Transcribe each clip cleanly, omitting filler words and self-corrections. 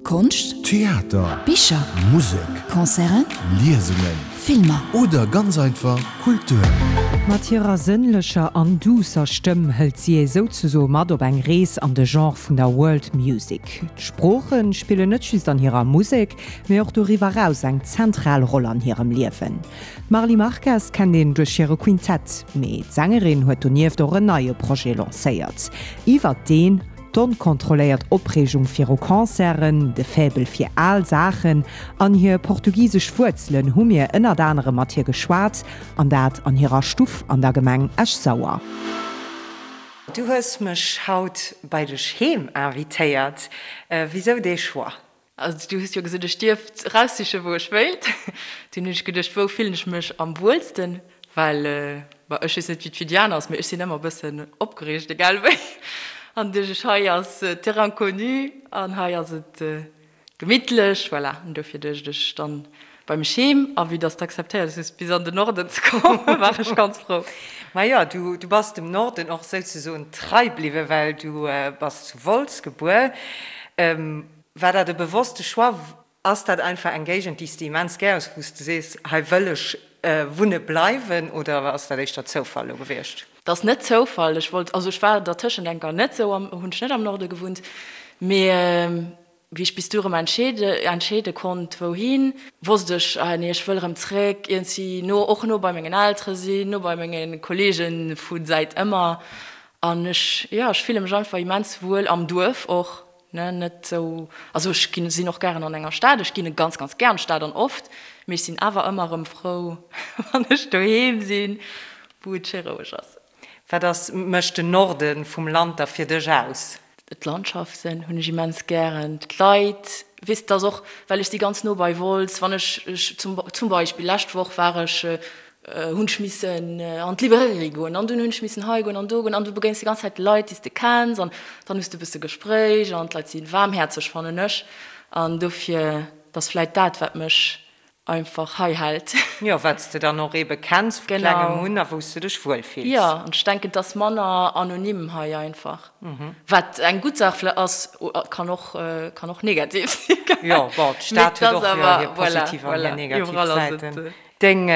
Konscht, Theater, Bicher, Musek, Concerten, Liesungen, Filmer. Oder ganz einfach Kultur. Mat hirer sënnlecher an duusser Stëmm hëlt si ee souzesoe mat op eng Rees an de Genre vun der World Music. D'Sprooche spillen net just an hirer Musek, mee och doriwwer raus eng zentral Roll an hirem Liewen. D'Marly Marques kennt een duerch hire Quintett, mee d'Sängerin huet donieft och en neie Projet lancéiert, iwwert deen D'onkontrolléiert Opreegung viru Concerten, de Faible fir al Saachen an hir portugisesch Wuerzelen hu mir ënnert anerem mat hir geschwat, an dat an hirer Stuff an der Gemeng Esch-Sauer. Du hues mech haut bei dech heem invitéiert. Wisou dee Choix? Also du hues jo gesot, ech dierft eraussichen, wou ech wéilt. Dunn hunn ech geduecht, wou fillen ech mech am wuelsten? Well, bon, ech weess net, wéi et fir déi aner ass, mee ech sinn ëmmer e bëssen opgereegt, egal wéi. An duecht ech, hei ass Terrain connu an hei ass et gemittlech, voilà. An dofir duecht ech dann bei mech heem. A vue dass de akzeptéiert hues, bis an den Norden ze kommen, war ech ganz frou. Majo, du bass dem Norden och souzesoen trei bliwwen, well du bass zu Wolz gebuer. War dat e bewosste Choix? Ass dat einfach eng Géigend, déi s de immens gär hues, wou s de sees, hei wëll ech wunne bleiwen, oder ass dat éischter Zoufall elo gewiescht? Dat ass net Zoufall. Ech wollt, also ech war dertëschent eng Kéier net esou am, hunn ech net am Norde gewunnt, mee wéi ech bis du erëm entscheede, entscheede konnt wouhin, wosst ech, ah nee, ech wëll erëm zréck iergendwéi no, och no bei mengen Eltere sinn, no bei menge Kollege vu säit ëmmer. An ech, jo, ech fille mech einfach immens wuel am Duerf och. Ne, net sou, also ech ginn, sinn och gären an enger Stad, ech ginn ganz, ganz gär an d'Stad an oft, mee ech sinn awer ëmmer erëm frou, wann ech doheem sinn, wou et schéi roueg ass. Wat ass, mécht den Norde vum Land da fir dech aus? D'Landschaften hunn ech immens gären, d'Leit, weess, et ass och, well ech si ganz no bei Wolz, wann ech, ech zum, zum Beispill lescht Woch war ech hunn ech missen an d'Librairie goen an dunn hunn ech missen hei goen an do goen an du begéins déi ganz Zäit Leit, déi s de kenns an dann hues de e bësse Gespréich an d'Leit si waarmhäerzeg, fannen ech. An dofir, et ass vläit dat, wat mech einfach hei hält. Jo, wat s de dann och eebe kenns vu klengem un a wou s de dech wuel fills. Jo, an ech denken, et ass manner anonym hei einfach, wat eng gutt Saach vläicht ass, kann och, kann och negativ sinn. Jo, bon, d'Stad huet och hir positiv an hir negativ Säiten. Deng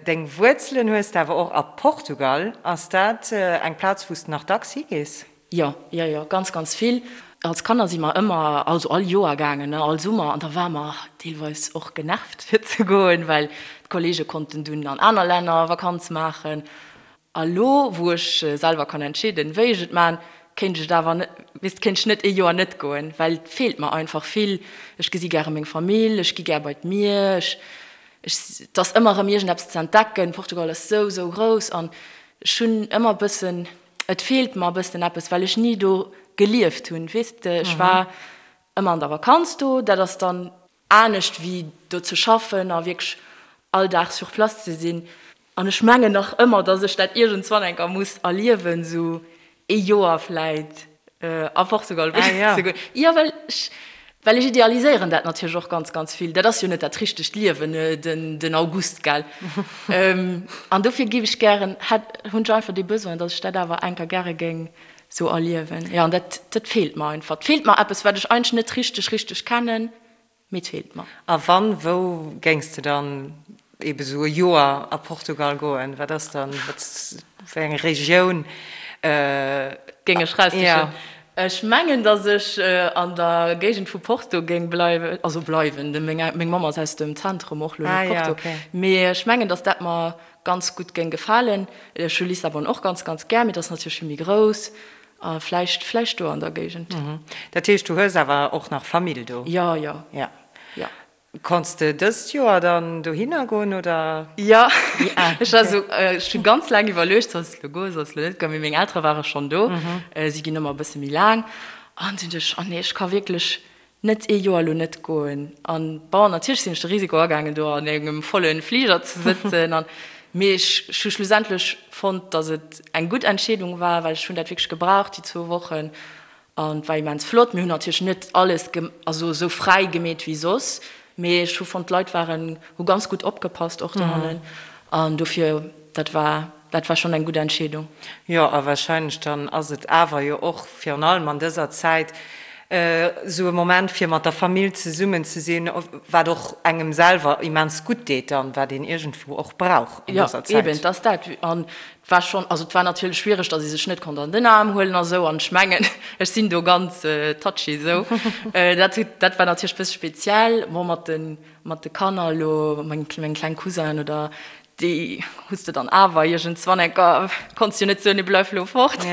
deng Wuerzelen hues de awer och a Portugal. Ass dat eng Plaz wou s de nach dacks higees? Jo, jo, jo, ganz, ganz vill. Als Kanner si mer ëmmer, also all Joer gaangen, ne, all Summer, an da ware mer deelweis och genervt fir ze goen, well d'Kollege konnten dunn an aner Länner Vakanz maachen. A lo, wou ech selwer kann entscheeden, wéi ech et man, kéint ech et awer net, weess, kéint ech net ee Joer net goen, well et feelt mer einfach vill. Ech gesi gäre meng Famill, ech gi gär bei d'Mier, ech, ech, et ass ëmmer erëm iergendeppes ze entdecken. Portugal ass sou, sou grouss an ech hunn ëmmer e bëssen, et feelt mer e bëssen eppes, well ech ni do gelieft hunn, weess de. Ech war ëmmer an der Vakanz do, dat ass dann anescht wéi do ze schaffen a wierklech all Dag sur place ze sinn. An ech mengen nach ëmmer, datt ech dat iergendswann eng Kéier muss erliewen, esou ee Joer vläit a Portugal wunnen ze goen. Jo, well ech, well ech idealiséieren dat natierlech och ganz, ganz vill. Dat ass jo net dat richtegt Liewen, den August, gell? An dofir géif ech gären, hätt, hunn ech einfach dee Besoin, datt ech dat awer eng Kéier gäre géing esou erliewen. Jo, an dat, dat feelt mer einfach. Et feelt mer eppes, wat ech eigentlech net richteg, richteg kennen. Mee et feelt mer. A wann, wou géings de dann ebe sou e Joer a Portugal goen? Wat ass dann, wat, wéi eng Regioun? Géing ech raussichen? Ech mengen, datt ech an der Géigend vu Porto géing bleiwen, also bleiwen, meng Mamm ass aus dem Zentrum och lo, net Porto, mee ech mengen, datt dat mer ganz gutt géing gefalen. Ech hu Lissabon och ganz, ganz gär, mee dat ass natierlech vill méi grouss. A vläicht, vläicht do an der Géigend. Dat heescht, du hues awer och nach Famill do? Jo, jo. Ja. Jo. Konns de dëst Joer dann dohinner goen, oder? Jo, ech war esou, ech hu ganz laang iwwerluecht, Solls de elo goen, solls de elo net goen? Mee meng Eltere ware schonn do, si ginn ëmmer e bësse méi laang. An dunn duecht ech, Oh nee, ech ka wierklech Net ee Joer elo net goen. An bon, natierlech sinn ech de Risiko agaangen, do an engem volle Fliger ze sëtzen. An, mee ech hu schlussendlech fonnt, datt et eng gutt Entscheedung war, well ech hunn dat wierklech gebraucht, déi zwou Wochen. An et war immens flott. Mir hunn natierlech net alles also esou fräi gemeet wéi soss, mee ech hu fonnt, d'Leit waren, hu ganz gutt opgepasst och dohannen. An dofir, dat war, dat war schonn eng gutt Entscheedung. Jo, a wahrscheinlech dann ass et awer jo och virun allem an dëser Zäit. Esou e Moment fir mat der Famill zesummen ze sinn, wat och engem selwer immens gutt deet an wat een iergendwou och brauch an dëser Zäit. Jo, eben, et ass dat. An et war schonn, also et war natierlech schwiereg, datt ee sech net konnt an den Aarm huelen a sou. An ech mengen, ech sinn do ganz touchy esou. Dat huet, dat war natierlech e bësse speziell. Bon, mat de, mat de Kanner elo, meng, meng kleng Cousinen oder Déi hues de dann awer iergendswann enker, konns jo net soen, nee bleif lo fort.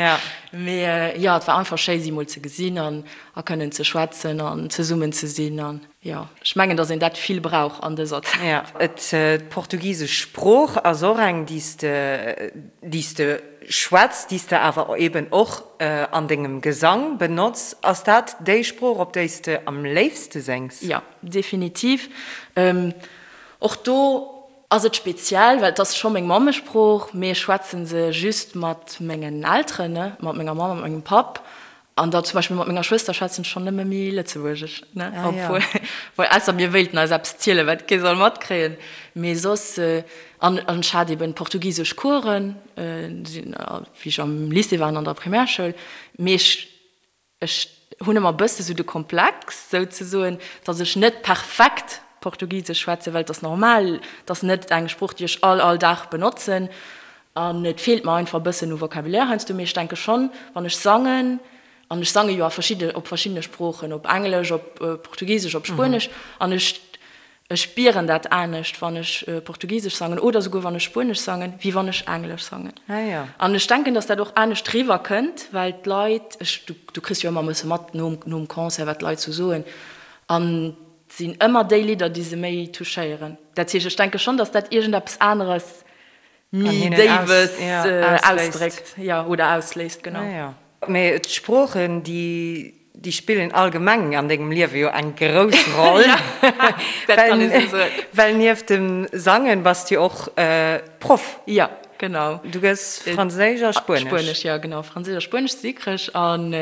Mee jo, et war einfach schéi si mol ze gesinn an a kënnen ze schwätzen an zesummen ze sinn an jo, ech mengen, datt een dat vill brauch an dëser Zäit. Jo, et, d'portugisesch Sprooch ass och eng, déi s de, déi s de schwätz, déi s de awer eben och an dengem Gesang benotz. Ass dat déi Sprooch, op déi s de am léifste séngs? Jo, definitiv. Och do Ass et speziell, well et ass scho meng Mammesprooch, mee ech schwätzen se just mat mengen Elteren, ne, mat menger Mamm a mat mengem Papp. An da zum Beispill mat menger Schwëster schwätzen ech schonn nëmme méi Lëtzebuergesch, ne, obwuel, well ausser mir wéilten eis eppes zielen, wat kee soll matkréien. Mee soss, an ech hat eben portugisesch Coursen, wéi ech am Lycée war an an der Primärschoul, mee ech Ech hunn ëmmer e bësse sou de Komplex, souzesoen, datt ech net perfekt Portugisesch schwätzen, well et ass normal, et ass net eng Sprooch, déi ech all, all Dag benotzen. An et feelt mer einfach e bëssen u Vocabulaire heiansdo. Mee ech denke schonn, wann ech sangen, an ech sange jo a verschidde, op verschiddene Sproochen, op Englesch, op Portugisesch, op Spuenesch, an ech Ech spieren dat anescht, wann ech Portugisesch sangen oder souguer wann ech Spuenesch sangen, wéi wann ech Englesch sangen. An ech denken, dass dat och anescht riwwer kënnt, well d'Leit, ech, du, du kriss jo ëmmer e bësse mat nom, nom Concert, wat d'Leit sou soen, an et sinn ëmmer déi Lidder, déi se méi touchéieren. Dat heescht, ech denke schonn, dass dat iergendeppes aneres, méi Déiwes ausdréckt, jo, oder ausléist, genau. Mee d'Sproochen, déi Déi spillen allgemeng an dengem Liewe jo eng grouss Roll. Well nieft dem Sangen bass du jo och Proff. Jo, genau. Du gëss Franséisch a Spuenesch. Spuenesch, jo genau. Franséisch a Spuenesch si krech. An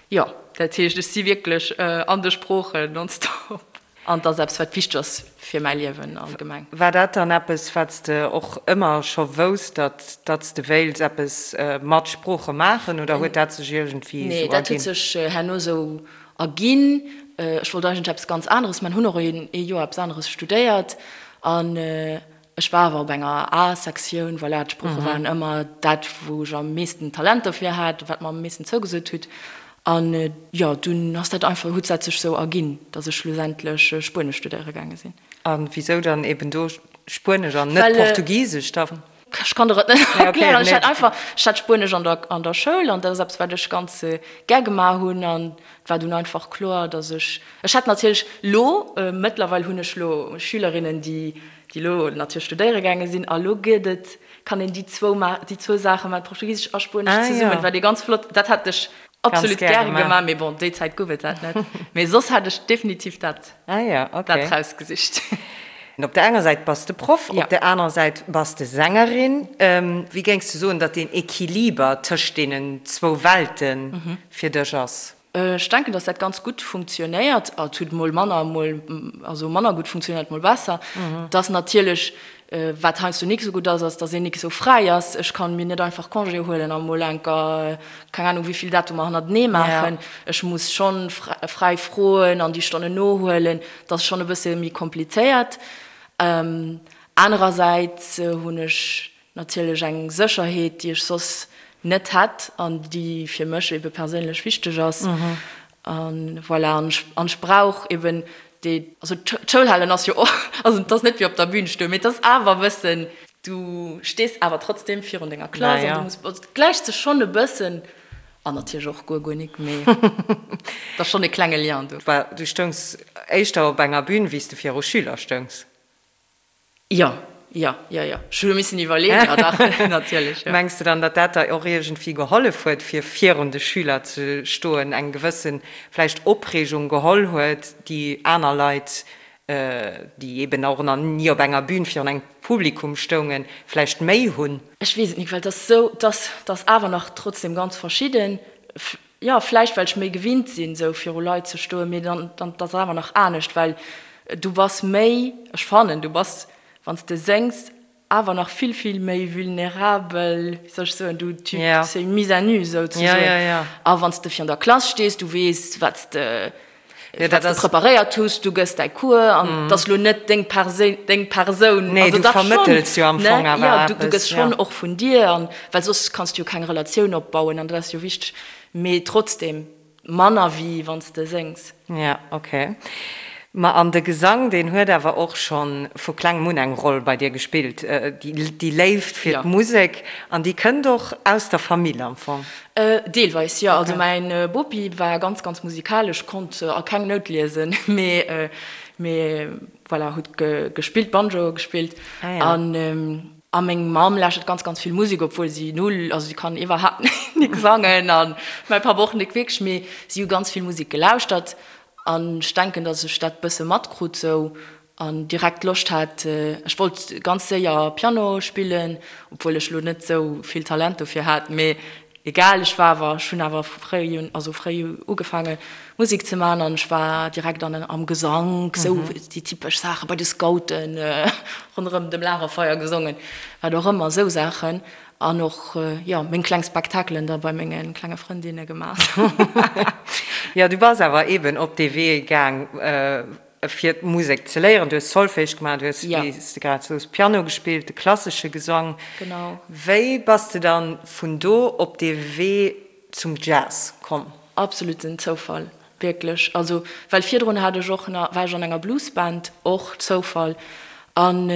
jo, dat heescht, ech si wierklech an de Sproochen nonstop. An et ass eppes, wat wichteg ass fir mäi Liewen allgemeng. War dat dann eppes, wat s de och ëmmer scho wousst, datt datt s de wéilts eppes mat Sprooche maachen, oder huet dat sech iergendwéi esou erginn? Nee, dat huet sech herno esou erginn. Ech wollt eigentlech eppes ganz aneres maachen, hunn och ee Joer eppes aneres studéiert an Ech war awer op enger A-Sektioun, voilà, d'Sprooche waren ëmmer dat, wou ech am meeschten Talent dofir hat, wat mer am meeschten zougesot hutt. An jo, dunn ass dat einfach, huet dat sech sou erginn, datt ech schlussendlech Spuenesch studéiere gaange sinn. A wisou dann eben do Spuenesch an net Portugisesch dann? Ech kann der et net erklären. Ech hat einfach, ech hat Spuenesch an der, an der Schoul an dat ass eppes, wat ech ganz gär gemaach hunn an et war dunn einfach kloer, datt ech, ech hat natierlech lo, mëttlerweil hunn ech lo Schülerinnen, déi déi elo natierlech studéiere gaange sinn, a lo gëtt et, kann een déi zwou ma, déi zwou Saache man, Portugisesch a Spuenesch zesummen, wat ee ganz flott, dat hätt ech absolut gäre gemaach, mee bon, déi Zäit gouf et dat net, mee soss hätt ech definitiv dat, dat rausgesicht. Op der enger Säit bass de Proff, op der anerer Säit bass de Sängerin. Wéi géings de soen, datt deen Equiliber tëscht deenen zwou Welte fir dech ass? Ech denken, dass dat ganz gutt funktionéiert. Et huet mol manner, mol, also manner gutt funktionéiert, mol besser. Et ass natierlech, wat heiansdo nik esou gutt ass, ass, dass een nik esou fräi ass. Ech kann mir net einfach Congé huelen a mol enker, keng Ahnung, wéi vill Datumer hannertenee maachen. Ech muss schonn fräi froen an déi Stonnen nohuelen. Dat ass schonn e bësse méi komplizéiert. Anerersäits hunn ech Natierlech eng Sécherheet, déi ech soss net hätt an déi fir mech ebe perséinlech wichteg ass. A voilà, an ech, an ech brauch eben dee, also d'Schoul halen ass jo och, also et ass net wéi op der Bühn stoen, mee et ass awer e bëssen, du stees awer trotzdem virun denger Klass an du muss, also et gläicht sech schonn e bëssen an natierlech och guer, guer nik, mee et ass schonn e klenge Lien do. Du stoungs éischter op enger Bühn, wéi s de viru Schüler stoungs. Jo, jo, jo, jo. Ech hu missen iwwerleeën, jo dach, natierlech, jo. Mengs de dann, datt dat der och iergendwéi gehollef huet, fir virun de Schüler ze stoen, eng gewësse vläicht Opreegung geholl huet, déi aner Leit, déi eben och nach ni op enger Bühn virun engem Publikum stoungen, vläicht méi hunn? Ech weess et nik, well et ass esou, et ass, et ass awer nach trotzdem ganz verschidden. Jo, vläicht well ech méi gewinnt sinn, esou viru Leit ze stoen, mee dann, dann, et ass awer nach anescht, well du bass méi, ech fannen, du bass, wann s de séngs. awer nach vill, vill méi vulnerabel, wéi soll ech soen, du, tu, c'est une mise à nu souzesoen. A wann s de virun der Klass stees, du weess, wat s de, wat s de preparéiert hues, du gëss däi Cours an et ass lo net deng Perséin, deng Persoun. Nee, du vermëttels jo am Fong awer eppes. Jo, du gëss schonn och vun dir an, well soss kanns du jo keng Relatioun opbauen an dat ass jo wichteg. Mee trotzdem. Manner wéi wann s de séngs. Ja, ok. Ma an de Gesang, deen huet awer och scho vu klengem un eng Roll bei dir gespillt, déi Léift fir d'Musek, an déi kënnt och aus der Famill am Fong? Deelweis, jo. Also mäin Bopi war ganz, ganz musikalesch, konnt a keng Nout liesen, mee, mee voilà, huet gespillt, Banjo gespillt an. A meng Mamm lauschtert ganz ganz vill Musek, obwuel si null, also si kann iwwerhaapt nik sangen an mäi Papp och nik wierklech, mee si hu ganz vill Musek gelauschtert an ech denken, datt ech dat bësse matkrut sou an direkt Loscht hat. Ech wollt ganz séier Piano spillen, obwuel ech lo net sou vill Talent dofir hat, mee Egal, ech war awer, ech hunn awer vu fréi un, also fréi ugefaange Musek ze man an ech war direkt an am Gesank, sou déi typesch Saachen, bei de Scouten ronderëm dem Lagerfeier gesongen, wat och ëmmer, sou Saachen an och, jo, meng kleng Spektakelen da bei menge klenge Frëndinne gemaach. Jo, du bass awer eben op dee Wee gaang fir d'Musek ze léieren. Du hues Solfège gemaach, du hues, wéi s de grad soos, Piano gespillt, de klassesche Gesang. Genau. Wéi bass de dann vun do op dee Wee zum Jazz komm? Absoluten Zoufall, wierklech. Also, well virdrun hat ech och nach, war ech an enger Bluesband, och Zoufall. An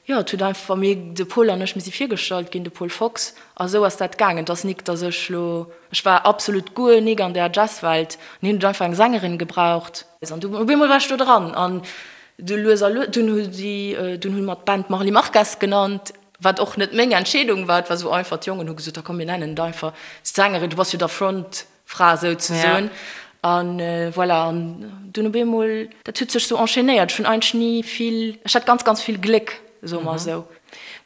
Jo, et huet einfach, mir, de Paul an ech, mir si virgestallt ginn, de Paul Fox, a sou ass dat gaangen. Et ass nik, datt ech lo, ech war absolut guer nik an där Jazzwelt, an hien huet einfach eng Sängerin gebraucht. An du, op eemol war ech do dran, an du lues a lues, dunn hu si, dunn hu mer d'Band Marly Marques genannt, wat och net meng Entscheedung war, et war sou einfach, d'Jongen hu gesot, da komm mir nennen et einfach d'Sängerin, du bass jo da Front. Fra souzesoen. An voilà, an dunn op eemol, dat huet sech sou enchaînéiert. Ech hunn eigentlech ni vill, ech hat ganz, ganz vill Gléck, soe mer esou.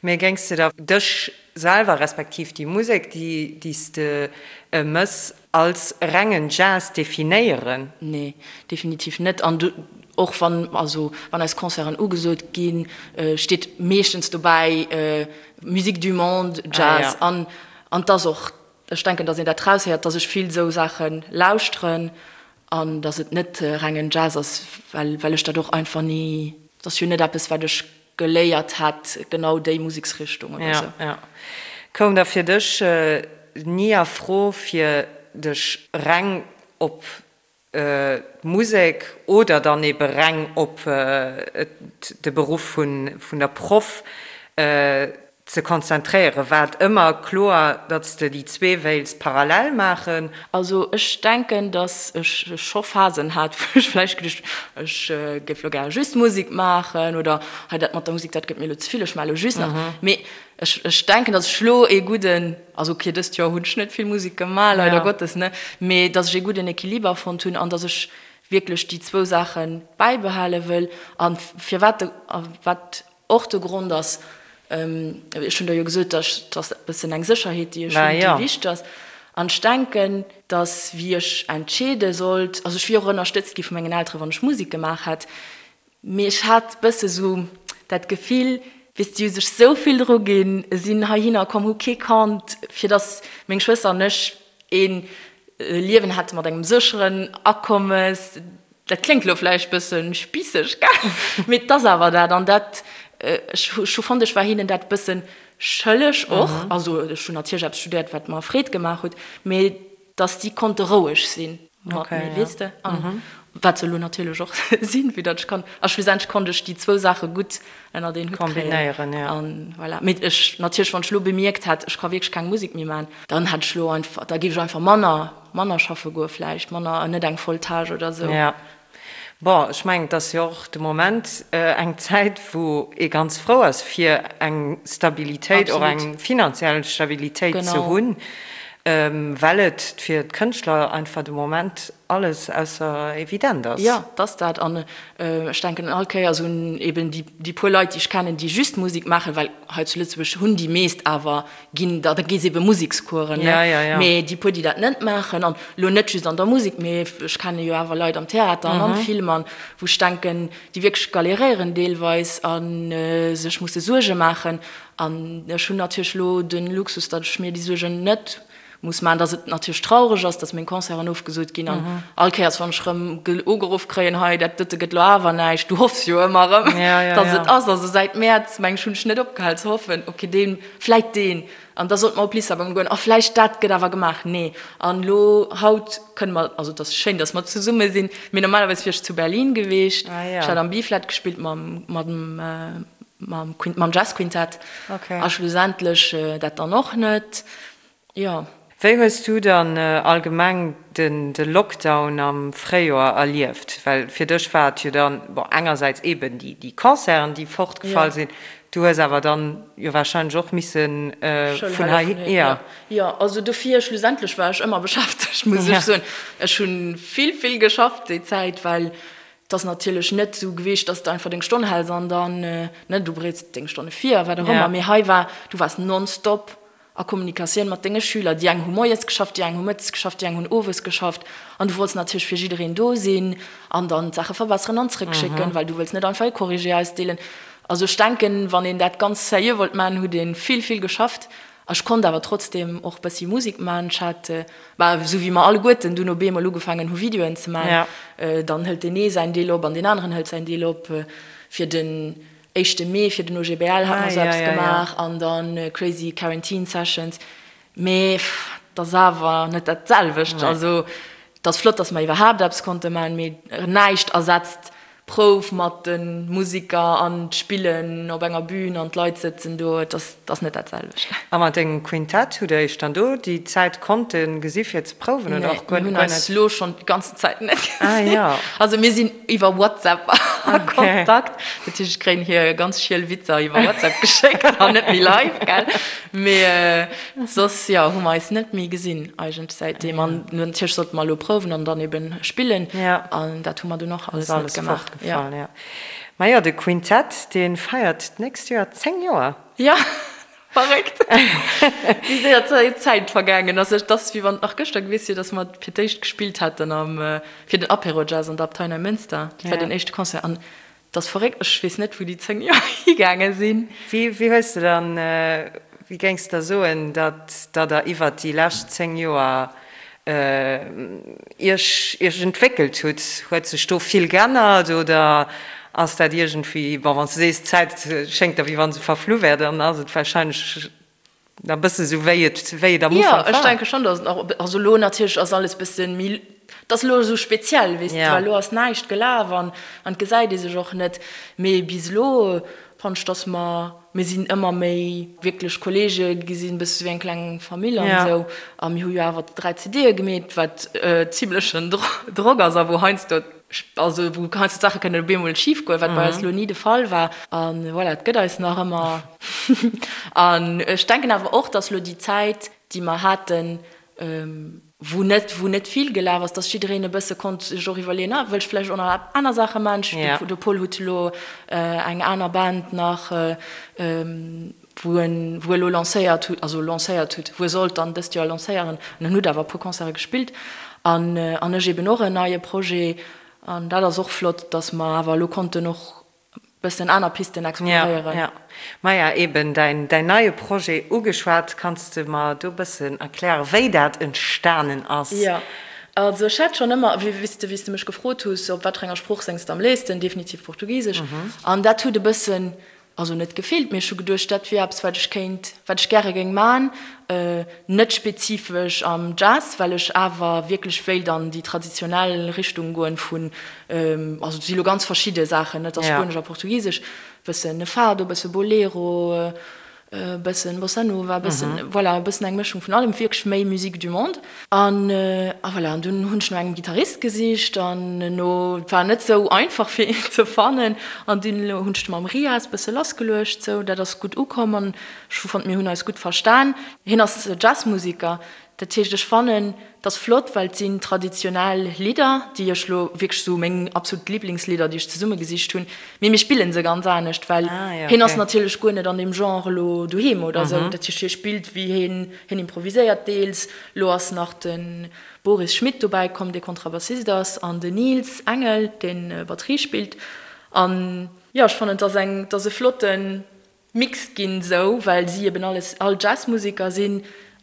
Mee géings de da dech selwer, respektiv déi Musek, déi, déi s de mëss, als rengen Jazz definéieren? Nee, definitiv net. An och wann, also wann eis Concerten ugesot ginn, steet meeschtens dobäi Musique du monde, Jazz. An, an 't ass och Ech denken, dass een dat raushéiert, dass ech vill esou Saache lauschteren an dass et net rengen Jazz ass, well well ech dat och einfach ni, et ass jo net eppes, wat ech geléiert hätt, genau déi Museksrichtung oder esou. Ja, ja. Koum da fir dech ni a Fro, fir dech reng op d'Musek oder dann ebe reng op de Beruff vun der Proff ze konzentréieren? War et ëmmer kloer, datt s de déi zwee wéils parallel maachen? Also ech denken, datt ech scho Phasen hat, wou ech vläicht geduecht hunn, ech géif elo gäre just Musek maachen oder hei dat mat der Musek, dat gëtt mir elo ze vill, ech maache elo just nach. Mee ech ech denken, datt ech elo ee gudden, also ok, dëst Joer hunn ech net vill Musek gemaach, leider Gottes, ne, mee datt ech ee gudden Equiliber fonnt hunn an datt ech wierklech déi zwou Saache bäibehale wëll. A firwat de, a wat och de Grond ass, ech hunn der jo gesot, datt et ass e bëssen eng Sécherheet, déi ech hunn, déi wichteg ass. An ech denken, datt wéi ech entscheede sollt, also ech wier och ënnerstëtzt gi vu mengen Eltere wann ech Musek gemaach hätt, Mee ech hat bësse sou dat Gefill, weess de, si hu sech sou vill dru ginn, sinn heihinner komm, hu kee Kand, fir dass meng Schwëster an ech ee Liewen hätte mat engem sécheren Akommes. Dat kléngt elo vläicht bësse spisseg, gell, mee et ass awer dat. An dat, ech hu fonnt, ech war hinnen dat bësse schëlleg och. Also ech hunn natierlech eppes studéiert, wat mer Freed gemaach huet, mee dass déi konnte roueg sinn mat mir, weess de, an wat se elo natierlech och sinn, vue datt ech kann, a schlussendlech konnt ech déi zwou Saache gutt ënnert een Hutt kréien. An voilà. Mee ech, natierlech, wann ech elo bemierkt hätt, ech ka wierklech keng Musek méi maachen, dann hätt ech elo einfach, da géif ech einfach manner, manner schaffe goe vläicht, manner, net eng voll Tâche oder esou. Bon, ech mengen, et ass jo och de Moment eng Zäit, wou ee ganz frou ass, fir eng Stabilitéit, och eng finanziell Stabilitéit ze hunn. Well et fir d'Kënschtler einfach de Moment alles ausser evident ass. Jo, et ass dat. An ech denken all Kéiers un eben déi puer Leit, déi ech kennen, déi just Musek maachen, well hei zu Lëtzebuerg hunn déi meescht awer ginn, da gi se ebe Musekscoursen, ne? Mee déi puer, déi dat net maachen, an elo net just an der Musek, mee ech kenne jo awer Leit am Theater an am Film, an wou ech denken, déi wierklech galéréieren deelweis a sech musse Suerge maachen. An ech hunn natierlech elo de Luxus, datt ech mir déi Suergen net muss maachen, datt et natierlech traureg ass, datt meng Concerten ofgesot ginn an all Kéiers, wann ech erëm ugeruff kréien, hei dat dote gëtt elo awer näischt, du hoffs jo ëmmer erëm, datt et ass. Also säit Mäerz, meng ech, hunn ech net opgehal ze hoffen, ok deen, vläit deen, an da sollte mer op Lissabon goen, a vläicht dat gëtt awer gemaach, nee. An elo haut kënne mer, also et ass schéin, datt mer zesumme sinn, mee normalerweis wier ech zu Berlin geweecht, ech hat am B-Flat gespillt mam, mam. Mam, mam Jazzquintett. Okay. A schlussendlech dat dann och net. Jo. Wéi hues du dann allgemeng den de Lockdown am Fréijoer erlieft? Well fir dech war et jo dann, bon, engersäits eben déi déi Concerten, déi fortgefall sinn, du hues awer dann jo wahrscheinlech och missen vun hei, jo. Jo, also dofir, schlussendlech war ech ëmmer beschäftegt, muss ech soen. Ech hu vill, vill geschafft déi Zäit, well Et ass natierlech net esou geweecht, dass de einfach deng Stonn häls an dann, ne, du bereets deng Stonne vir a wat och ëmmer, mee hei war, du waars nonstop a Kommunikatioun mat denge Schüler. Déi eng hu moies geschafft, déi eng hu mëttes geschafft, déi eng hunn owes geschafft an du wollts natierlech fir jiddereen do sinn an dann d'Saache verbesseren an zrëckschécken, well du wëlls net einfach e Corrigé ausdeelen. Also ech denken, wann een dat ganz sérieux wollt maachen, huet ee vill, vill geschafft. Ech konnt awer trotzdem och bëssi Musik man. Ech hat, bah, esou wéi mer alleguerten dunn op eemol ugefaangen hu Videoen ze man, dann hëlt deen ee säin Deel op an deen aneren hëlt säin Deel op. Fir den éischte Mee, fir den OGBL hat mer esou eppes gemaach an dann Crazy Quarantine Sessions. Mee 't ass awer net dat selwecht. Also 't ass flott, dass mer iwwerhaapt eppes konnte man, mee näischt ersetzt Prouf mat de Musiker an d'Spillen op enger Bühn an d'Leit sëtzen do, et ass, et ass net dat selwecht. A mat dengem Quintett, hutt der iech dann do déi Zäit konnte gesi fir ze prouwen oder och guer Nee, mir net? hunn eis elo schonn déi ganzen Zäit net gesinn. Ah jo. Also mir sinn iwwer WhatsApp a Kontakt, dat heescht ech kréien hir ganz schiel Witzer iwwer WhatsApp geschéckt an net méi live, gell. Mee soss, jo, hu mer eis net méi gesinn eigentlech säitdeem. An natierlech sollte mer elo prouwen an dann eben spillen. An dat hu mer dunn och alles net gemaach. Fortgefall, jo. Majo, de Quintett, dee feiert d'nächst Joer 10 Joer. Jo, verréckt, wéi séier d'Zäit vergaangen ass. Et ass, wéi wann et nach gëschter gewiescht wier, datt mer fir d'éischt gespillt hätten am, fir den Apéro Jazz an der Abtei Neimënster. Dat war den éischte Concert. An 't ass verréckt, ech weess net wou déi 10 Joer higaange sinn. Wéi wéi hues de dann, wéi géings de da soen, datt datt der iwwert déi lescht 10 Joer iech iech entwéckelt hutt? Huet sech do vill geännert oder ass dat iergendwéi, bon wann s de sees d'Zäit schéngt der wéi wann se verflu wär, dann ass et wahrscheinlech Na bësse sou wéi et wéi et am Ufank war. Jo, ech denke schonn, dass et nach, also elo natierlech ass alles bësse méi, et ass elo esou speziell, weess de, well elo ass näischt gelaf an an et gesäit ee sech och net. Mee bis elo fannen ech, dass mer, mir sinn ëmmer méi wierklech Kollege gi sinn, bësse sou wéi eng kleng Famill an esou. A mir hu jo awer 3 CDe gemeet, wat zimlechen Drock ass a wou heiansdo Also wou heiansdo d'Saache kënnen op eemol schif goen, wat bei eis elo ni de Fall war. A voilà, et gëtt eis nach ëmmer. An ech denken awer och, datt elo déi Zäit, déi mer haten, wou net, wou net vill gelaf ass, datt jiddereen e bësse konnt sech och iwwerleeën, ah, wëll ech vläicht och nach aner Saache maachen. De Paul huet elo eng aner Band nach, wou en wou e lo lancéiert hutt, also lancéiert hutt, wou e sollt dann dëst Joer lancéieren, an en hutt awer e puer Concerte gespillt, an an ech eben och en neie Projet, an dat ass och flott, datt mer awer elo konnten och e bëssen aner Pisten exploréieren. Ja, ja. Maja, eben däin däin neie Projet ugeschwat, kanns de mer do e bëssen erklären, wéi dat entstanen ass? Jo, also ech hat schonn ëmmer, wéi s de wéi s de mech gefrot huss, op wat fir enger Sprooch séngs de am léifsten, definitiv Portugisesch, an dat huet e bëssen Also net gefillt, mee ech hu geduecht, dat wier eppes, wat ech kéint, wat ech gäre géing man. Net spezifesch am Jazz, well ech awer wierklech wéilt an déi traditionell Richtung goen vun, also et si lo ganz verschidde Saachen, et ass Spuenesch a Portugisesch, bëssen Fado, bësse Bolero, e bëssen Bossa Nova, e bëssen, voilà, e bëssen eng Mëschung vun allem, wierklech méi Musique du monde. An, a voilà, an dunn hunn ech no engem Gittarist gesicht an no, et war net sou einfach fir een ze fannen, an dunn hunn ech mam Riaz bësse lassgeluecht, sou, dat ass gutt ukomm an ech hu fonnt, mir hunn eis gutt verstan. Hien ass Jazzmusiker. Dat heescht, ech fannen, et ass flott, well et sinn traditionell Lidder, déi ech elo wierklech esou meng absolut Liblingslidder, déi ech zesummegesicht hunn, mee mir spille se ganz anescht, well hien ass natierlech guer net an deem Genre elo doheem oder esou. Dat heescht, hie spillt wéi hien, hien improviséiert deels. Elo ass nach de Boris Schmidt dobäi komm, dee Kontrabassist ass, an den Nils Engel, dee Batterie spillt. An jo, ech fannen, et ass eng, et ass e flotten Mix ginn, sou well si eben alles all Jazzmuseker sinn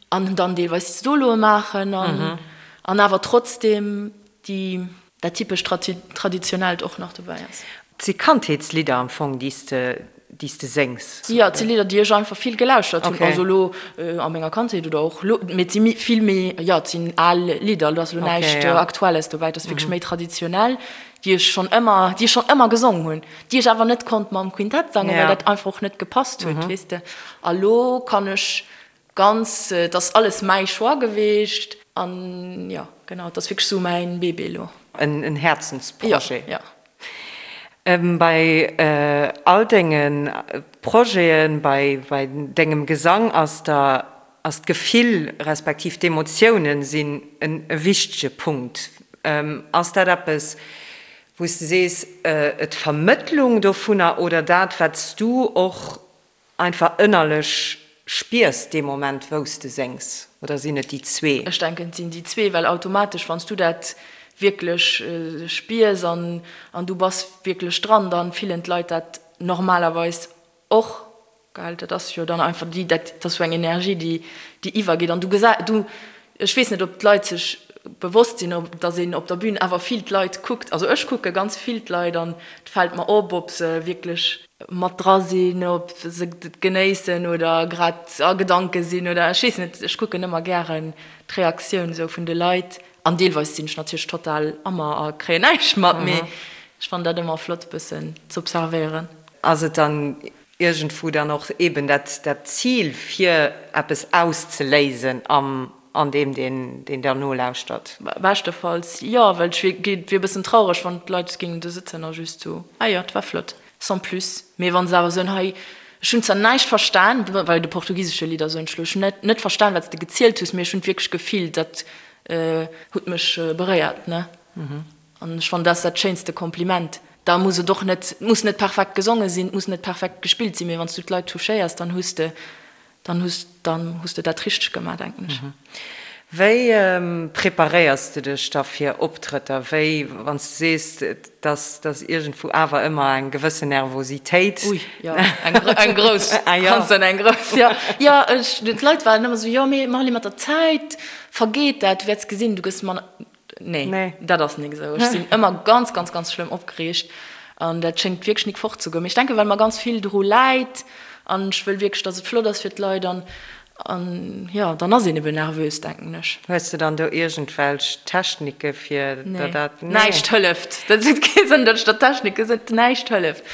an dann deelweis Soloe maachen an an awer trotzdem déi dat typescht traditionellt och nach dobäi ass. Et si Kandheetslidder am Fong déi s de déi s de séngs? Jo, et si Lidder déi ech einfach vill gelauschtert hunn, also elo a menger Kandheet oder och elo, mee et si vill méi, jo et sinn al Lidder, do ass elo näischt Aktuelles dobäi, et ass wierklech méi traditionell. déi ech schonn ëmmer, déi ech schonn ëmmer gesong hunn, déi ech awer net konnt mam Quintett sangen, well dat einfach och net gepasst huet, weess de. A lo kann ech ganz, et ass alles mäi Choix geweecht an jo, genau, et ass wierklech esou mäin Bébé elo. En Häerzensprojet. Jo, jo. Bei all denge Projeten, bei dengem Gesang ass der, ass d'Gefill respektiv d'Emotiounen sinn e wichtege Punkt. Ass dat eppes, wou s de sees, d'Vermëttlung dovunner oder dat, wat s du och einfach ënnerlech spiers dee Moment, wou s de séngs? Oder sinn et déi zwee? Ech denken, et sinn déi zwee, well automatesch, wann s du dat wierklech spiers an du bass wierklech dran, da fillen d'Leit dat normalerweis och. Gell, dat ass jo dann einfach déi, dat ass esou eng Energie, déi, déi iwwergeet. An du gesä, du, ech weess net, ob d'Leit sech bewosst sinn, ob, datt een op der Bühn awer vill d'Leit kuckt. Also ech kucke ganz vill d'Leit an et fält mer op, ob se wierklech mat dra sinn, ob se et genéissen oder grad a Gedanke sinn oder ech weess net. Ech kucken ëmmer gären d'Reaktioun esou vun de Leit. An deelweis sinn ech natierlech total ammer a kréien näischt mat, mee ech fannen dat ëmmer flott e bëssen z'observéieren. Ass et dann iergendwou dann och eben dat dat Zil fir eppes auszeléisen am an deem deen deen der nolauschtert? Beschtefalls jo, well ech wier wier e bëssen traureg wann d'Leit géingen do sëtzen a just sou, ah jo, et war flott, sans plus. Mee wa se awer soen, hei ech hunn zwar näischt verstan, bei de portugisesche Lidder soen ech elo, ech hunn net net verstan wat s de gezielt hues, mee ech hunn et wierklech gefillt, dat huet mech beréiert, ne. An ech fannen, dat ass dat schéinste Kompliment. Da muss et och net, et muss net perfekt gesonge sinn, et muss net perfekt gespillt sinn, mee wann s du d'Leit touchéiers, dann hues de, dann hues, dann hues de dat richteg gemaach, denken ech. Wéi preparéiers de dech da fir Optrëtter? Wéi, wann s du sees, dass dass iergendwou awer ëmmer eng gewëssen Nervositéit. Ui, jo, eng, eng grouss, ganz dann eng grouss, jo. Jo, ech, d'Leit waren ëmmer esou, jo, mee Marly, mat der Zäit vergeet dat, du wäerts gesinn, du gëss manner. Nee, dat ass nik esou. Ech sinn ëmmer ganz, ganz, ganz schlëmm opgereegt an dat schéngt wierklech nik fortzegoen. Mee ech denken, well mer ganz vill dru läit an ech wëll wierklech, datt et flott ass fir d'Leit an, an jo, dann ass een ebe nervös, denken ech. Hues de dann do iergendwelch Technike fir der dat? Nee, näischt hëlleft. Dat huet kee Sënn, datt ech der Technike soen. Näischt hëlleft.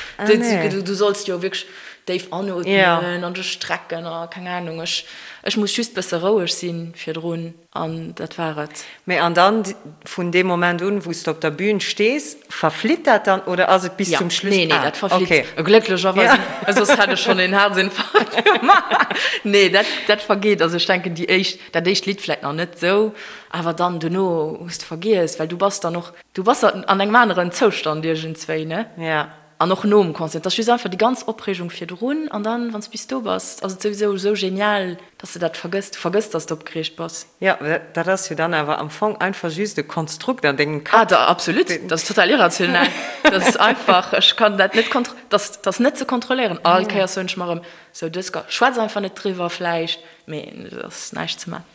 Du solls jo wierklech déif anootmen an dech strecken a keng Anung. Ech, ech muss just bësse roueg sinn virdrun. An dat war et. Mee an dann, vun deem Moment un, wou s de op der Bühn stees, verflitt dat dann oder ass et bis zum Schluss? Nee, nee, dat verflitt. Glécklecherweis, soss hätt ech schonn een Haerzinfarkt gemaach. Nee, dat, dat vergeet. Also ech denken, déi éischt, dat éischt Lidd vläicht nach net esou, awer dann dono hues de vergiess, well du bass dann och, du bass an engem aneren Zoustand iergendswéi, ne? Ja. An och nom Concert, et ass just einfach déi ganz Opreegung virdrun an dann, wann s bis do bass, ass et souwisou esou genial, dass de dat vergëss. Du vergëss, dass de opgereegt bass. Jo, dat ass jo dann awer am Fong einfach just e Konstrukt an dengem Kapp. Ah, da, absolut, dat ass total irrational. Dat ass einfach, ech kann dat net kontro, dat ass net ze kontrolléieren. All Kéiers soen ech mer erëm, sou dës, schwätz einfach net driwwer vläicht, mee et ass näischt ze man.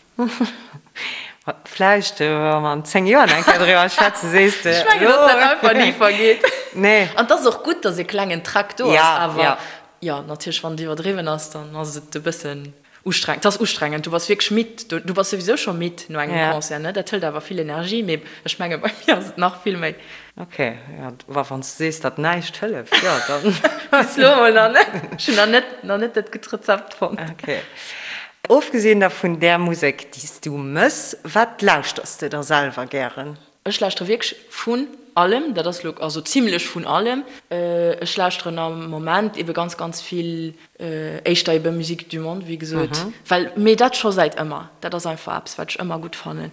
Vläicht, wa mer an 10 Joer nach eng Kéier driwwer schwätzen, sees de, Ech mengen, dass dat einfach ni vergeet. Nee. An et ass och gutt, dass e klengen Trac do ass, awer jo, natierlech, wann et iwwerdriwwen ass, dann ass et e bëssen ustrengend. Et ass ustrengend, du bass wierklech midd, du bass souwisou scho midd no engem Concert, ne? Dat hëlt awer vill Energie, mee ech menge bei mir ass et nach vill méi. Ok, jo, wa wann s de sees, datt näischt hëlleft, jo, dann. Bis elo emol nach net. Ech hunn nach net, nach net dat gutt Rezept fonnt. Ok. Ofgesinn da vun där Musek, déi s du mëss, wat lauschters de da selwer gären? Ech lauschtere wierklech vun. allem, dat ass lo, also zimlech vun allem. Ech lauschteren am Moment ebe ganz, ganz vill éischter ebe Musique du monde, wéi gesot, well, mee dat scho säit ëmmer. Dat ass einfach eppes, wat ech ëmmer gutt fannen.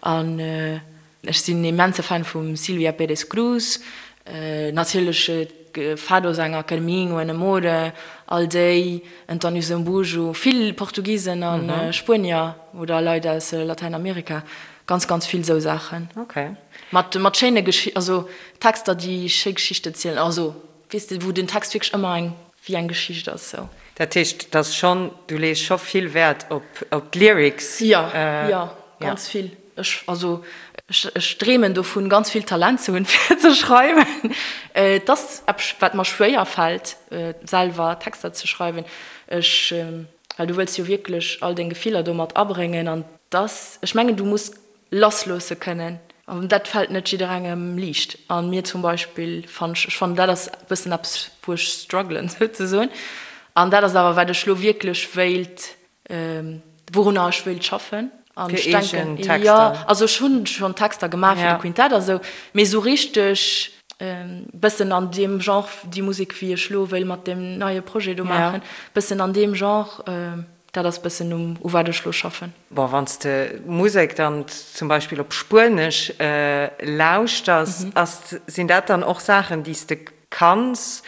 An ech sinn immense Fan vum Silvia Pérez Cruz, natierlech Fado-Sänger, Carminho, Ana Moura, all déi, António Zambujo, vill Portugisen a Spuenier oder Leit aus Latäinamerika. Ganz ganz vill sou Saachen. Okay. Mat mat schéine Geschi also Texter déi schéi Geschichten zielen, also weess de wou den Text wierklech ëmmer eng wéi eng Geschicht ass sou. Dat heescht et ass schonn, du lees scho vill Wäert op op d'Lyrics? Jo, jo, ganz vill. Ech also ech ech dreemen dovun ganz vill Talent ze hunn fir ze schreiwen. Et ass eppes wat mer schwéier fält selwer Texter ze schreiwen. Ech Well du wëlls jo wierklech all deng Gefiller do mat abréngen an dass, ech mengen, du muss lassloosse kënnen an dat fält net jidderengem liicht. A mir zum Beispill fann ech, ech fannen dat ass e bëssen eppes wou ech struggelen souzesoen an dat ass awer wat ech lo wierklech wéilt, wourunner ech wéilt schaffen. An Fir ech denken, eegen Texter? jo, also ech hunn schonn Texter gemaach fir de Quintett a sou, mee sou richteg bëssen an deem Genre, déi Musek wéi ech lo wéilt mat deem neie Projet do maachen, bëssen an deem Genre, dat ass bëssen um u wat ech lo schaffen. Bon, wann s de Musek dann zum Beispill op Spuenesch lauschters, ass, sinn dat dann och Saachen, déi s de kanns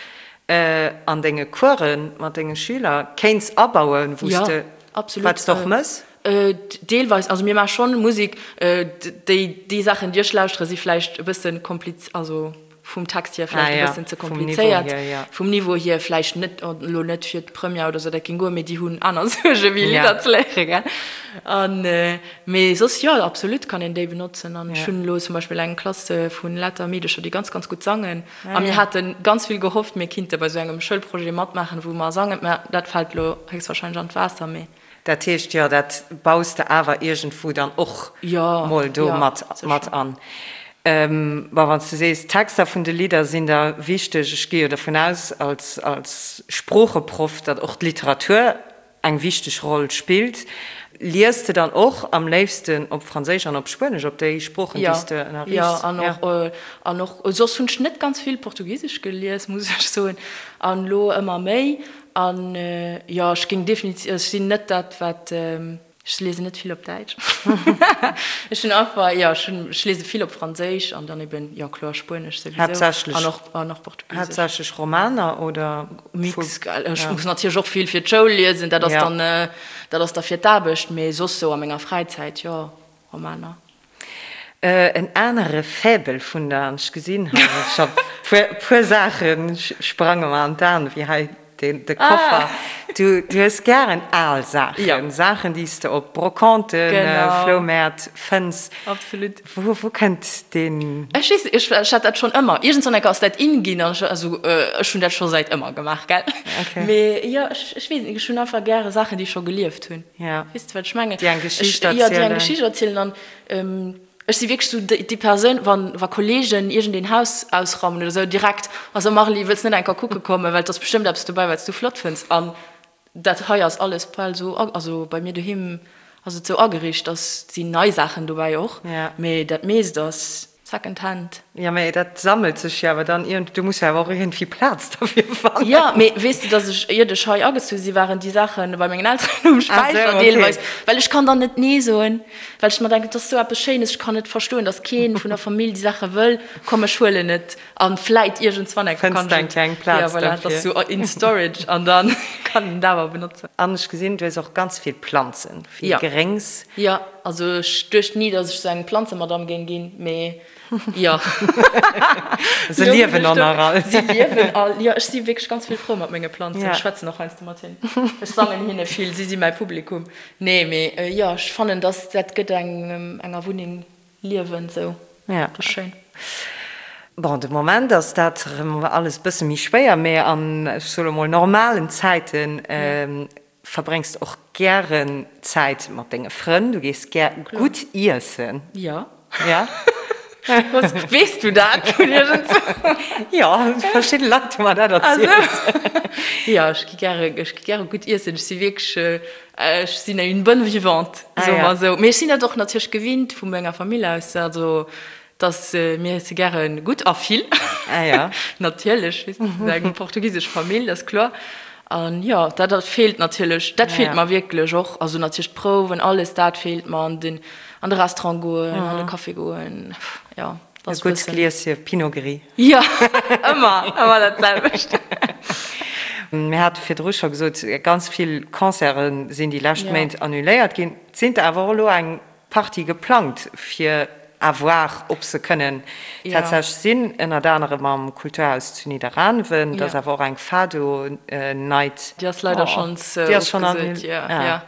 an denge Coursen mat denge Schüler kéints abauen, wou s de, wat s de och mëss? Deelweis, also mir maache schonn Musek, déi déi Saachen déi ech lauschtere si vläicht e bësse kompliz, also vum Text hier vläicht e bëssen ze komplizéiert, vum Niveau hier vläicht net, elo net fir d'Première oder sou, dat géing goen, mee déi hunn aner Suerge wéi Lidder ze léiere gell. An mee soss jo, absolut kann een déi benotzen an ech hunn elo zum Beispill eng Klass vu lauter Meedecher déi ganz ganz gutt sangen a mir hate ganz vill gehofft mir kinnte bei sou engem Schoulprojet matmaachen wou mer sangen, mä dat fält elo héchstwahrscheinlech an d'Waasser, mee. Dat heescht, jo, dat baus de awer iergendwou dann och mol do mat an. Bon, wann s de sees, d'Texter vun de Lidder sinn der wichteg, ech gi jo dovun aus als Sproocheproff, datt och d'Literatur eng wichteg Roll spillt. Lies de dann och am léifsten op Franséisch an op Spuenesch, op déi Sproochen, déi s de ënnerriichts? Jo, an och, an och soss hunn ech net ganz vill Portugisesch gelies, muss ech soen, an elo ëmmer méi. An jo, ech géing definitiv, ech sinn net dat wat, ech liesen net vill op Däitsch. Ech hunn einfach, jo, ech hunn, ech liese vill op Franséisch an dann eben, jo kloer Spuenesch souwisou an och, an och Portugisesch. Haaptsächlech Romaner oder? Mix, gell. Ech muss natierlech och vill fir d'Schoul liesen, dat ass dann, dat ass da fir d'Aarbecht, mee soss sou a menger Fräizäit, jo, Romaner. En anere Faible vun der, an ech gesinn hei scho puer, puer Saache sprange mer an d'Aen, wéi hei de Koffer. Du hues gären al Saachen, Saachen, déi s de op Brocanten, Floumäert fënns. Absolut. Wou, wou kënnt deen? Ech weess net, ech hat dat schonn ëmmer. Iergendwann enker ass dat in ginn an ech, also ech hunn dat scho säit ëmmer gemaach, gell. Mee jo, ech, ech weess net, ech hunn einfach gäre Saachen, déi scho gelieft hunn. Weess de, wat ech mengen? Déi eng Geschicht erzielen. Jo, déi eng Geschicht erzielen an Ech si wierklech esou déi Persoun, wann wa Kollegen iergendeen Haus ausraumen oder esou, direkt, Also Marly, wëlls net eng Kéier kucke kommen, well et ass bestëmmt eppes dobäi, wat s du flott fënns. An dat hei ass alles bal esou, also bei mir doheem ass et esou ageriicht, dass sinn nei Saachen dobäi och, mee dat meescht ass Second Hand. Jo, mee dat sammelt sech jo awer dann iergend, du muss jo awer och iergendwéi Plaz derfir fannen. Jo, mee weess de, dass ech, iert ech hei agezu si, waren déi Saache bei mengen Elteren um Späicher deelweis, well ech kann dann net Nee soen, well ech mer denken, et ass esou eppes Schéines, ech kann net verstoen, dass kee vun der Famill déi Saache wëll, komm ech huelen et a vläit iergendswann eng Kéier kann ech et, eng Plaz jo voilà, et ass esou in storage an da kann een et awer benotzen. An ech gesinn, du hues och ganz vill Planzen, vill Gréngs. Jo, also ech duecht ni, dass ech esou eng Planzemadame géing ginn, mee jo. Se liewen och nach all. Si liewen all, jo. Ech si wierklech ganz vill frou mat menge Planzen. Ech schwätzen och heiansdo mat hinnen. Ech sangen hinne vill, si si mäi Publikum. Nee, mee jo, ech fannen, dass dat gëtt engem enger Wunneng Liewen esou. Dat ass schéin. Bon, de Moment ass dat erëm alles e bësse méi schwéier, mee an, ech soe lo mol, normalen Zäiten Verbréngs de och gären Zäit mat denge Frënn? Du gees gär gutt iessen? Jo. Ja? Weess du dat vun iergendzwou? Jo, verschidde Leit hu mer dat erzielt. Jo, ech gi gäre, ech gi gäre gutt iessen. Ech si wierklech, ech sinn une bonne vivante, soe mer esou. Mee ech sinn dat och natierlech gewinnt vu menger Famill aus. Also. Dass mir iesse gäre gutt a vill. Ah ja. Natierlech, weess de, eng portugisesch Famill, dat ass kloer. An jo, dat dat feelt natierlech, dat feelt mer wierklech och. Also natierlech d'Prouwen, alles dat feelt mer an den an de Restaurant goen, an de Café goen, jo. E gutt Glieschen Pinot Gris. Jo, ëmmer, ëmmer dat selwecht. Mir hate virdru scho gesot, ganz vill Concerte sinn déi lescht Méint annuléiert ginn. Et sinn der awer och elo eng Partie geplangt fir à voir ob se kënnen tatsächlech sinn, ënnert anerem am Kulturhaus zu Nidderaanwen. Et ass awer och eng Fado Night. Déi ass leider schonns ofgesot, jo, jo.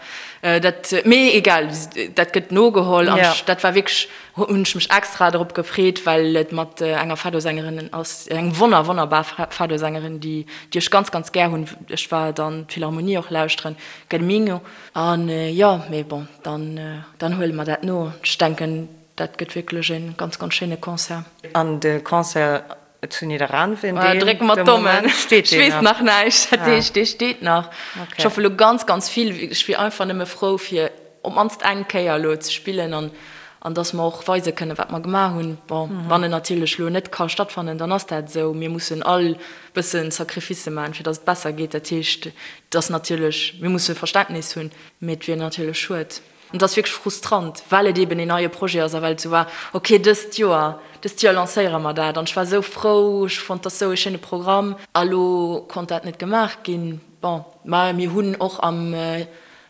Dat, mee egal, dat gëtt nogeholl an dat war wierklech, hunn ech mech extra drop gefreet, well et mat enger Fado-Sängerin ass, eng wonner, wonnerbar Fado-Sängerin, déi, déi ech ganz, ganz gär hunn. Ech war dann d'Philharmonie och lauschteren, Gelminho. An jo, mee bon, dann, dann huele mer dat no. Ech denken, dat gëtt wierklech e ganz, ganz schéine Concert. An de Concert zu Nidderaanwen, deen, Drécke mer de d'Dommen. Moment steet Ech deen weess nach? nach näischt, dat heescht, dee steet nach. Okay. Ech hoffe lo ganz, ganz vill. Ech wier einfach nëmme frou, fir op d'mannst eng Kéier elo ze spillen an, an dass mer och weise kënnen, wat mer gemaach hunn. Bon, wann en natierlech elo net ka stattfannen, dann ass dat esou. Mir mussen all bëssen Sacrificë maachen, fir dass et besser geet. Dat heescht, et ass natierlech, mir musse Verständnis hunn, mee et wier natierlech schued. An et ass wierklech frustrant, well et eeben een neie Projet ass a well et esou war, ok, dëst Joer, dëst Joer lancéiere mer dat. An ech war esou frou, ech fonnt, dat ass esou ee schéine Programm. A lo konnt dat net gemaach ginn. Bon, mä mir hunn och am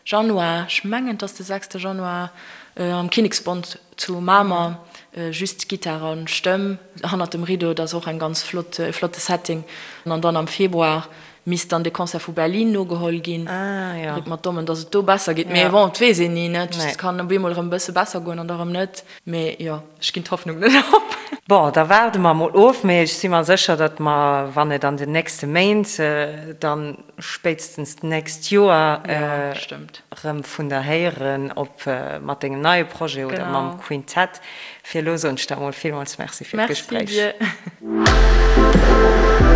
Januar, ech mengen et ass de sechste Januar, am Kinneksbond zu Mamer, just Gittar a Stëmm hannert dem Rideau, dat ass och eng ganz flott, e flotte Setting. An dann am Februar misst dann de Concert vu Berlin nogeholl ginn. Dréckt mer d'Dommen, dass et do besser geet. Mee bon, et weess een ni, ne? Et kann op eemol erëm e bësse besser goen an da erëm net. Mee jo, ech ginn d'Hoffnung net op. Bon, da waarde mer emol of. Mee ech si mer sécher, datt mer, wann et an den nächste Méint, dann spéitstens d'nächst Joer erëm vun der héieren, ob mat dengem neie Projet oder mam Quintett. Fir elo soen ech der emol villmools Merci fir d'Gespréich. Merci dir.